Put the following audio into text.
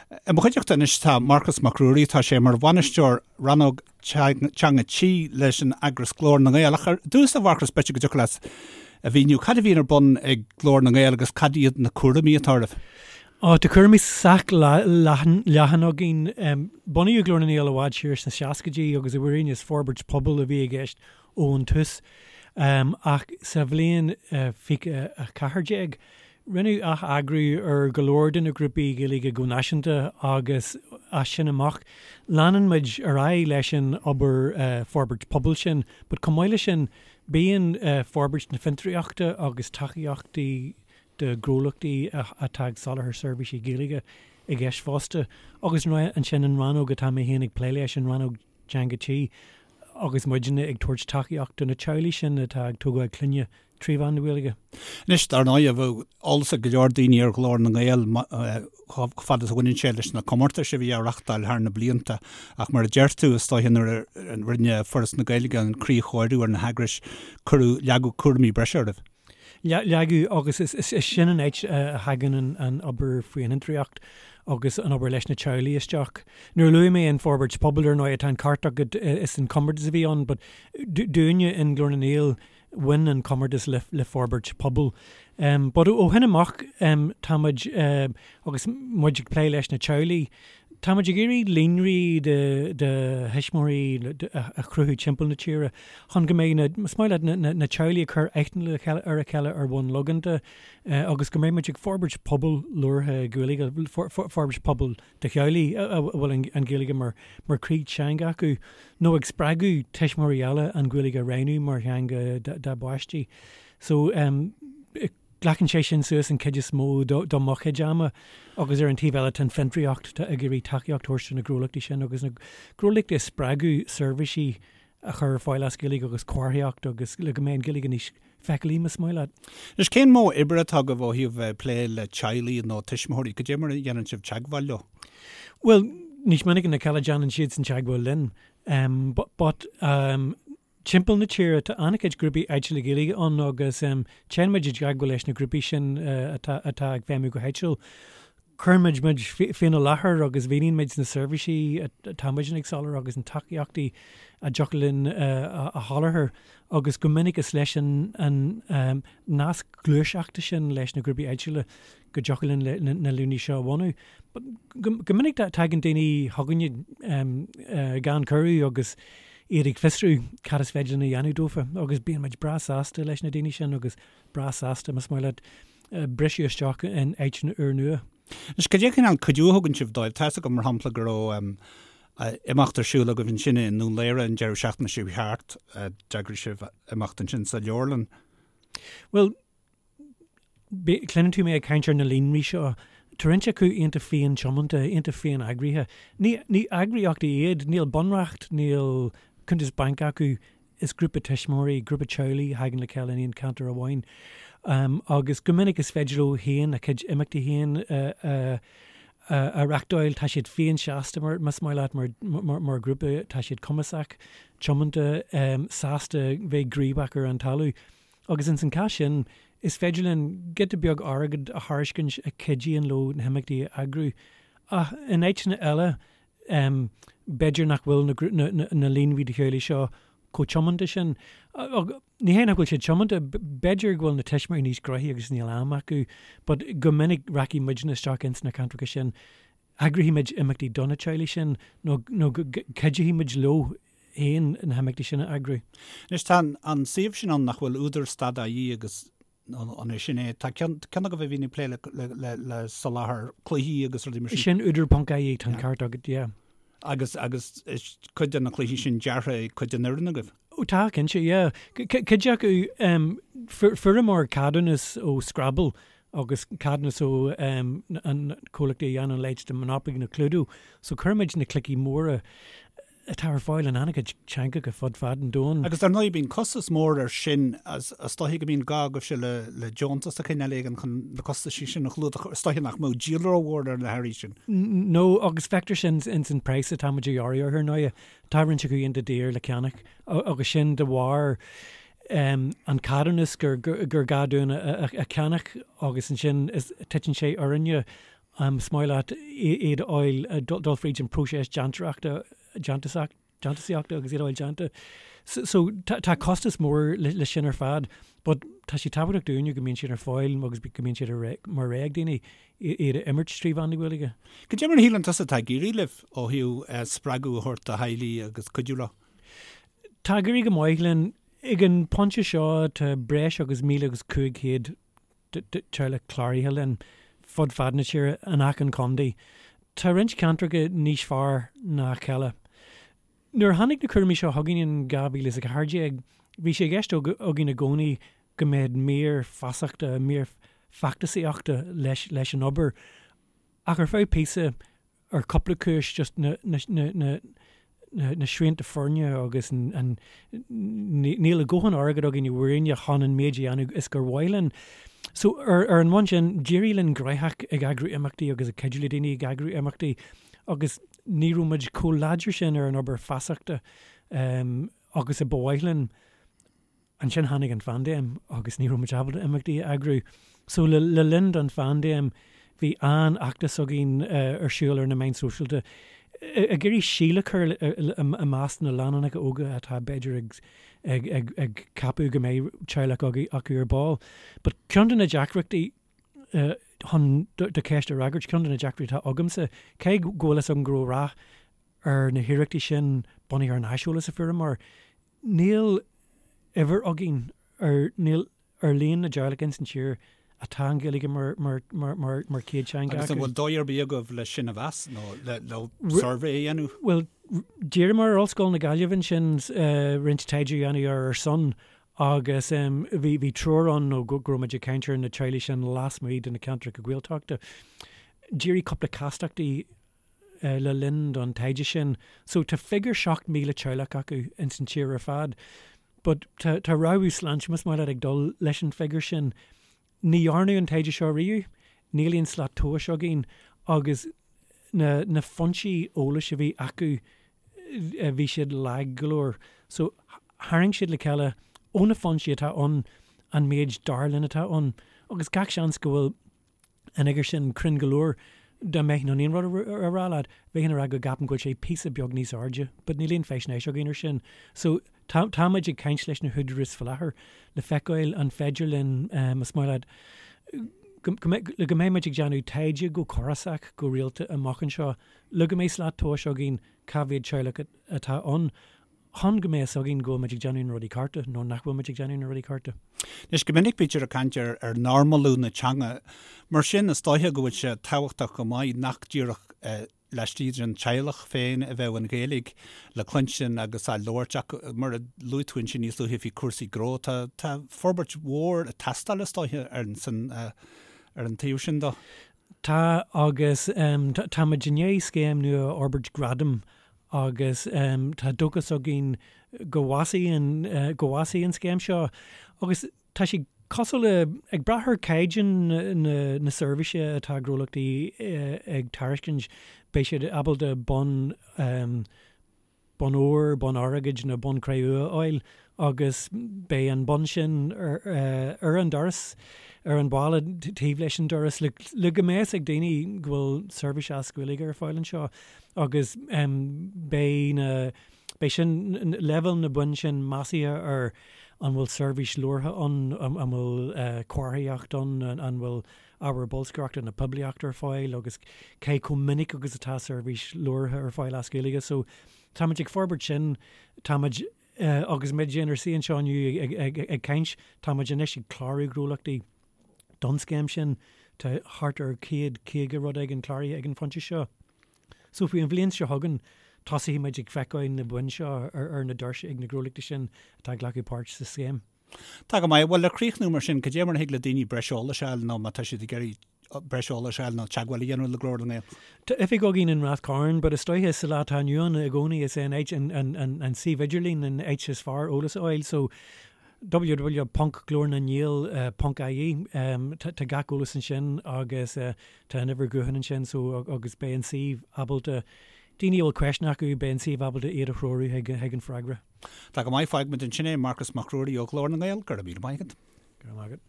I mo chuideachta anois tá Marcas Mac Ruairí, tá sé mar bhainisteoir rannóg Teanga Tí leis an eagras Glór na nGael. Ach ar dtús, a Mharcais, b'fhéidir go dtiocfadh leat a mhíniú cad a bhíonn ar bun ag Glór na nGael agus cad iad na cúraimí atá oraibh? Ó, tá cúraimí sách leathan againn. Bunaíodh Glór na nGael i bhfad siar sna seascaidí agus i bhfírinne is forbairt pobail a bhí i gceist ón tús. Ach sa bhliain 2014, rinneadh ath-eagrú ar go leor de na grúpaí Gaeilge go náisiúnta agus as sin amach, leanann muid ar aghaidh leis an obair forbairt pobail sin but chomh maith leis sin, bíonn forbairt na fiontraíochta agus tacaíochtaí do ghnólachtaí atá ag soláthar seirbhísí Gaeilge i gceist fosta. Agus ansin an rannóg atá mé féin ag plé leis, an rannóg Teanga Tí, agus muidne ag tabhairt tacaíocht do na teaghlaigh sin atá ag tógáil clainne 3 mheán na Gaeilge. Anois, dar ndóigh, bheadh eolas ag go leor daoine ar Ghlór na nGael chomh fada is a bhaineann sé leis na comórtais a bhí á reachtáil thar na blianta, ach mar a deir tú, is dóiche nuair a rinne Foras na Gaeilge an críochóiriú ar na heagrais, cuireadh, leagadh cúraimí breise oraibh. Leagadh, agus is sin an áit a thagann an obair faoin fhiontraíocht agus an obair leis na teaghlaigh isteach. Nuair a luaigh mé an forbairt pobail, ar ndóigh, tá an ceart agat, is an comórtas a bhí ann, but dúinne in Glór na nGael, bhain an comórtas le forbairt pobail. But ó shin amach, tá muid, agus muid ag plé leis na teaghlaigh, tá muid ag iarraidh líonraí de thuismitheoirí a chruthú timpeall na tíre chun go mbeidh na, is maith leat, na teaghlaigh ag cur aithne ar a chéile ar bhonn logánta agus go mbeidh muid ag forbairt pobal labhartha Gaeilge, forbairt pobal de theaghlaigh a bhfuil an Ghaeilge mar chroí teanga acu nó ag spreagadh tuismitheoirí eile an Ghaeilge a roghnú mar theanga dá bpáistí. So, Glacann sé sin suas an chuid is mó do mo chuid ama agus ar an taobh eile tá an fiontraíocht, tá ag iarraidh tacaíocht a thabhairt do na gnólachtaí sin agus na gnólachtaí a spreagadh seirbhísí a chur ar fáil as Gaeilge agus comharthaíocht agus le go mbeidh an Ghaeilge níos feiceálaí más maith leat. Anois cén modh oibre atá agaibh ó thaobh bheith ag plé le teaghlaigh nó tuismitheoirí? Cad é mar a dhéanann sibh teagmháil leo? Bhuel, níos minice ná a chéile déanann siadsan teagmháil linn. But Timpeall na tíre tá an-chuid grúpaí áitiúla Gaeilge ann agus téann muid i dteagmháil leis na grúpaí sin atá atá ag feidhmiú go háitiúil. Cuireann muid muid féin i láthair agus mhíníonn muid na seirbhísí atá muidne ag soláthar agus na tacaíochtaí a dtiocfadh linn a sholáthar agus go minic is leis an an nasc gluaiseachta sin leis na grúpaí áitiúla go dtiocfadh linn na líonraí seo a bhunú. Go minic tagann daoine chugainne gan cuireadh agus iad ag fiosrú cad is féidir linn a dhéanamh dófa agus bíonn muid breá sásta leis na daoine sin agus breá sásta, más maith leat, briseadh isteach in áiteanna úrnua. Anois, cad é cineál cuidiú a thugann sibh dóibh? Tá 'fhios agam, mar shampla, go raibh imeacht ar siúl agaibh ansin i nDún Laoghaire an deireadh seachtaine seo thart. D'eagraigh sibh imeacht ansin sa leabharlann. Bhuel, Cluineann tú mé ag caint ar na líonraí seo. Tá roinnt acu iontach féin-tiomanta, iontach féin-eagraithe. Ní ní eagraíochtaí iad, níl bunreacht, níl cuntas bainc acu, is grúpa tuismitheoirí, grúpa teaghlaigh a thagann le chéile in aon cheantar amháin. Agus go minic is féidir leo féin a gcuid imeachtaí féin a a reachtáil. Tá siad féin-seasta mar, más maith leat, mar mar ghrúpa, tá siad cumasach, tiomanta, sásta bheith gníomhach ar an talamh. Agus ins an chás sin, is féidir linn giota beag airgid a thairiscint a chuidíonn leo na himeachtaí a eagrú. Ach in áiteanna eile, b'fhéidir nach bhfuil na líonraí de theaghlaigh seo chomh tiomanta sin. Ní hé nach bhfuil siad tiomanta, b'fhéidir go bhfuil na tuismitheoirí níos gnoithí agus níl am acu, but go minic rachaidh muidne isteach ins na ceantracha sin, eagraífidh muid imeachtaí do na teaghlaigh sin nó go gcuideoidh muid leo féin na himeachtaí sin a eagrú. Anois tá an suíomh sin ann nach bhfuil údar stad ie agus an é sin é? Tá ceann agaibh a bhíonn ag plé le soláthar cluichí agus rudaí mar sin. Sin údar ponc ie, tá an ceart agat, yeah. Agus agus is cuid de na cluichí sin deartha ag cuid den fhoireann agaibh? Ó tá, cinnte, yeah. Cuid acu, fuaireamar ceadúnas ó Scrabble agus ceadúnas ó an comhlacht a dhéanann a leithéid de Monopoly nó Cluedo, so cuirimid na cluichí móra atá ar fáil in an-chuid teangacha fud fad an domhain. Agus dar ndóigh bíonn costas mór air sin, is dóiche go mbíonn gá agaibhse le deontas de chineál éigin chun na costaisí sin a chlúdach, is dóiche nach mbeadh díol rómhór ar na hearraí sin. No, agus feictear sin ins an praghas atá muid a ghearradh orthu ar ndóigh. Tá roinnt acu iontach daor le ceannach agus sin de bharr an ceadúnas gur gá dúinn a cheannach agus ansin titeann sé orainne. Is maith leat iad a fháil, dul fríd an próiseas déantóireachta, déantúsaíochta agus iad a fháil déanta. So tá costas mór le sin ar fad but tá sé tábhachtach dúinne go mbíonn siad ar fáil agus go mbíonn siad mar rogha ag daoine iad a imirt trí mheán na Gaeilge. Cad é mar a shíleann tusa atá ag éirí libh ó thaobh spreagadh a thabhairt do theaghlaigh agus cuidiú leo? Tá ag éirí go maith linn. Ag an bpointe seo tá breis agus 1,500 teaghlach cláraithe linn fud fad na tíre in achan chontae. Tá roinnt ceantracha níos fearr ná a chéile. Nuair a tháinig na cúraimí seo chugainn in 2014, bhí sé i gceist againn i gcónaí go mbeadh mír feasachta, mír feachtasaíochta leis leis an obair. Ach ar feadh píosa, ar cúpla cúis, just na, na, na, na, na srianta foirne agus an, níl a dhóthain airgead againn i bhfírinne chun an méid a dhéanamh is gur mhaith linn. So ar, ar an mbonn sin, d'éirigh linn gnóthach ag eagrú imeachtaí agus ag cuidiú le daoine ag eagrú imeachtaí agus ní raibh muid chomh láidir sin ar an obair feasachta um, agus a ba mhaith linn. Ansin tháinig an phaindéim agus ní raibh muid ábalta imeachtaí a eagrú. So le le linn don phaindéim bhí an-fheachtas againn ar siúl ar na meáin sóisialta ag iarraidh síol a chur i measc na lánúineacha óga atá b'fhéidir ag ag ag ag ceapadh go mbeidh teaghlach acu ar ball. But ceann de na deacrachtaí chun do cheist a fhreagairt, ceann de na deacrachtaí atá agamsa, cé go bhfuil fhios agam go raibh rath ar na hiarrachtaí sin bunaithe ar an aiseolas a fuaireamar, Níl uimhir againn ar níl ar líon na dteaghlach ins an tír atá an Ghaeilge mar mar mar mar mar chéad teanga Agus an acu. bhfuil dóigh ar bith agaibh le sin a mheas nó le le suirbhé a dhéanamh? Bhuel, d'iarramar ar Ollscoil na Gaillimhe ansin roinnt taighde a dhéanamh ar ár son agus bhí bhí treoir ann nó go go raibh muid ag caint ar na teaghlaigh sin lasmuigh de na ceantracha Gaeltachta. D'éirigh cúpla castachtaí le linn don taighde sin. So tá figiúr 7,000 teaghlach acu ins an tír ar fad. But tá tá rabhadh sláinte más maith leat ag dul leis an bhfigiúr sin. Ní dhearnadh an taighde seo riamh, níl aon slat tomhais againn agus na na foinsí eolais a bhí acu bhí siad lag go leor. So tharraing siad le chéile ó na foinsí atá ann an méid dar linn atá ann agus gach seans go bhfuil an fhigiúr sin cruinn go leor. Dá mbeinn in ann aon rud a rá leat, bheinn ag rá go gceapaim go bhfuil sé píosa beag níos airde, but níl aon faisnéis againn ar sin. So, tá, táimid ag caint leis na húdaráis faoi láthair le feiceáil an féidir linn, más maith leat, go, go mbeidh, le go mbeidh muid ag déanamh taighde go córasach, go rialta amach anseo, le go mbeidh slat tomhais againn cá mhéad teaghlach atá ann. chun go mbeidh fhios againn go bhfuil muid ag déanamh na rudaí cearta nó nach bhfuil muid ag déanamh na rudaí cearta. Anois, go minic bítear ag caint ar ar normalú na teanga. Mar sin, is dóiche go bhfuil sé tábhachtach go maith nach díreach laistigh den teaghlach féin a bheadh an Ghaeilge le cluinstin agus á labhairt ach mar a luaigh tú ansin níos luaithe faoi chúrsaí gnó, tá tá forbairt mhór ag teastáil is dóiche ar an san ar an taobh sin de. Tá agus tá muid i ndiaidh scéim nua a fhorbairt Gradam agus tá dóchas againn go bhfásfaidh an go bhfásfaidh an scéim seo agus tá sé cosúil le ag brath ar chaighdeán na na seirbhíse atá gnólachtaí ag tairiscint beidh siad ábalta bonn bonn óir, bonn airgid nó bonn cré-umha a fháil agus beidh an bonn sin ar an doras, ar an bhalla taobh leis an doras le le go mbeidh fhios ag daoine go bhfuil seirbhís as Gaeilge ar fáil anseo agus beidh na beidh sin leibhéal na boinn sin measctha ar an bhfuil seirbhís labhartha ann, an bhfuil comharthaíocht ann, an bhfuil ábhar bolscaireachta nó poiblíochta ar fáil agus cé chomh minic agus atá seirbhís labhartha ar fáil as Gaeilge. So táimid ag forbairt sin, táimid agus muid inár suí anseo inniu ag, ag, ag caint, táimid anois ag clárú gnólachtaí don scéim sin. Tá thart ar 150 rud éigin cláraithe ag an phointe seo. So faoi an bhliain seo chugainn, tosóidh muid ag feiceáil na boinn seo ar, ar na doirse ag na gnólachtaí sin atá ag glacadh páirt sa scéim. Tá go maith. Bhuel, le críochnú mar sin, cad é mar a thig le daoine breis eolais a fháil nó má tá siad ag iarraidh breis eolais a fháil nó teagmháil a dhéanamh le Glór na nGael? Tá oifig againn in Rath Cairn, but is dóiche sa lá atá inniu ann i gcónaí is é an áit, an, an, an, an suíomh idirlín an áit is fearr eolas a fháil. So, www ponc glórnangael ponc ie, tá, tá gach eolas ansin agus tá an uimhir ghutháin ansin so agus beidh an suíomh ábalta, daoine a bhfuil ceisteanna acu, beidh an suíomh ábalta iad a threorú chuig, chuig an freagra. Tá go maith, fágfaimid ansin é, Marcas Mac Ruairí ó Ghlór na nGael, go raibh míle maith agat. Go raibh maith agat.